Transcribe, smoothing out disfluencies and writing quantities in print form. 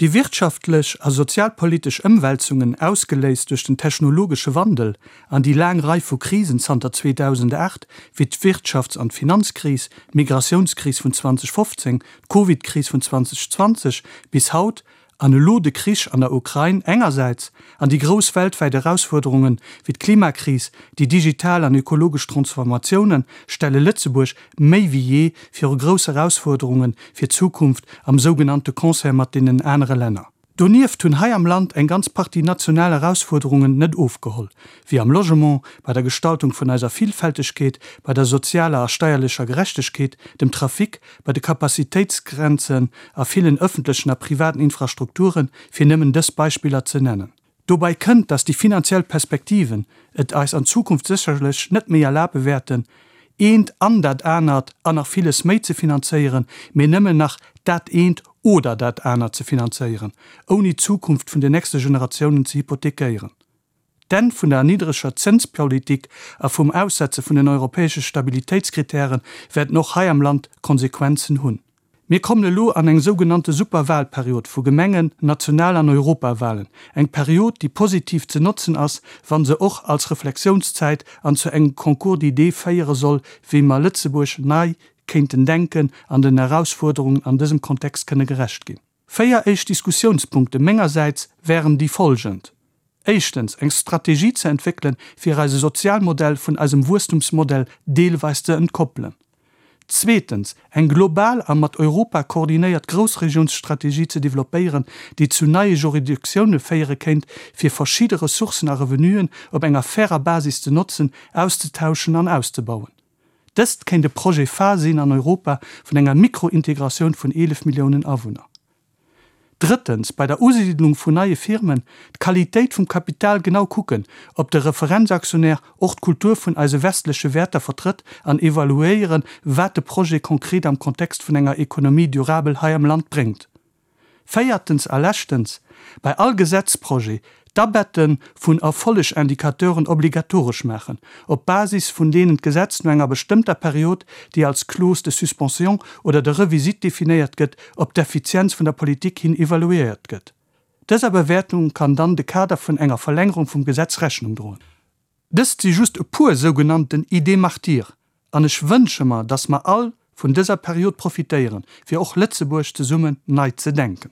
Déi wirtschaftlech a sozialpolitesch Ëmwälzungen, ausgeléist duerch den technologesche Wandel an déi laang Rei vu Krisen zanter 2008, wéi d'Wirtschafts an d'Finanzkris, d'Migratiounskris vun 2015, d'Covidkris vun 2020 bis haut, an elo de Krich an der Ukrain engersäits an déi grouss weltwäit Erausfuerderungen wéi d'Klimakris, déi digital an ökologesch Transformatiounen, stelle Lëtzebuerg méi wéi jee viru grouss Erausfuerderunge fir d'Zukunft am sougenannte Concert mat deenen anere Länner. Donieft hunn hei am Land eng ganz Partie national Erausfuerderungen net ofgeholl, wéi am Logement, bei der Gestaltung vun eiser Villfältegkeet, bei der sozialer a steierlecher Gerechtegkeet, dem Trafic, bei de Capacitéitsgrenzen a villen ëffentlechen a privaten Infrastrukturen, fir nëmmen dës Beispiller ze nennen. Dobäi kënnt, dass déi finanziell Perspektiven et eis an Zukunft sécherlech net méi erlabe wäerten, eent an dat anert an nach villes méi ze finanzéieren, mee nëmmen nach dat eent oder dat anert ze finanzéieren, ouni d'Zukunft vun den nächste Generatiounen ze hypothekéieren. D'Enn vun der niddreger Zënspolitik a vum Aussetze vun den europäesche Stabilitéitskritäre wäerten och hei am Land Konsequenzen hunn. Mir kommen elo an eng sougenannte Superwahlperiod vu Gemengen-, National an Europawahlen, eng Period, déi positiv ze notzen ass, wa se och als Reflexiounszäit an zu engem Concours d'idées féiere soll, wéi mer Lëtzebuerg nei kéinten denken an den Erausfuerderungen an dësem Kontext kënne gerecht ginn. Véier éischt Diskussiounspunkte mengersäits wären déi folgend, Éischtens, eng Strategie ze entwéckelen, fir eise Sozialmodell vun eisem Wuesstumsmodell deelweis ze entkoppelen. Zweetens, eng global a mat Europa koordinéiert Groussregiounsstrategie ze developpéieren, déi zu neie Juridictioune féiere kéint, fir verschidde Ressourcen a Revenuen op enger fairer Basis ze notzen, auszetauschen an auszebauen. Dëst kéint e Projet phare sinn an Europa vun enger Mikrointegratioun vun 11 Milliounen Awunner. Drëttens, bei der Usiidlung vun neie Firmen d'Qualitéit vum Kapital genau kucken, ob de Referenzaktionär och d'Kultur vun eise westleche Wäerter vertrëtt an evaluéieren, wat de Projet konkret am Kontext vun enger Économie durable hei am Land bréngt. Véiertens a leschtens, bei all Gesetzprojet d'Abette vun Erfollegindicateuren obligatoresch maachen, op Basis vun deenen d'Gesetz no enger bestëmmter Period, déi als Clause de suspension oder de revisite definéiert gëtt, op d'Effizienz vun der Politik hin evaluéiert gëtt. Dëser Bewäertung kann dann de Kader vun enger Verlängerung vum Gesetz Rechnung droen. Dëst si just e puer sougenannten Idées martyres, an ech wënsche mer, dass mer all vun dëser Period profitéieren, fir och Lëtzebuerg zesummen nei ze denken.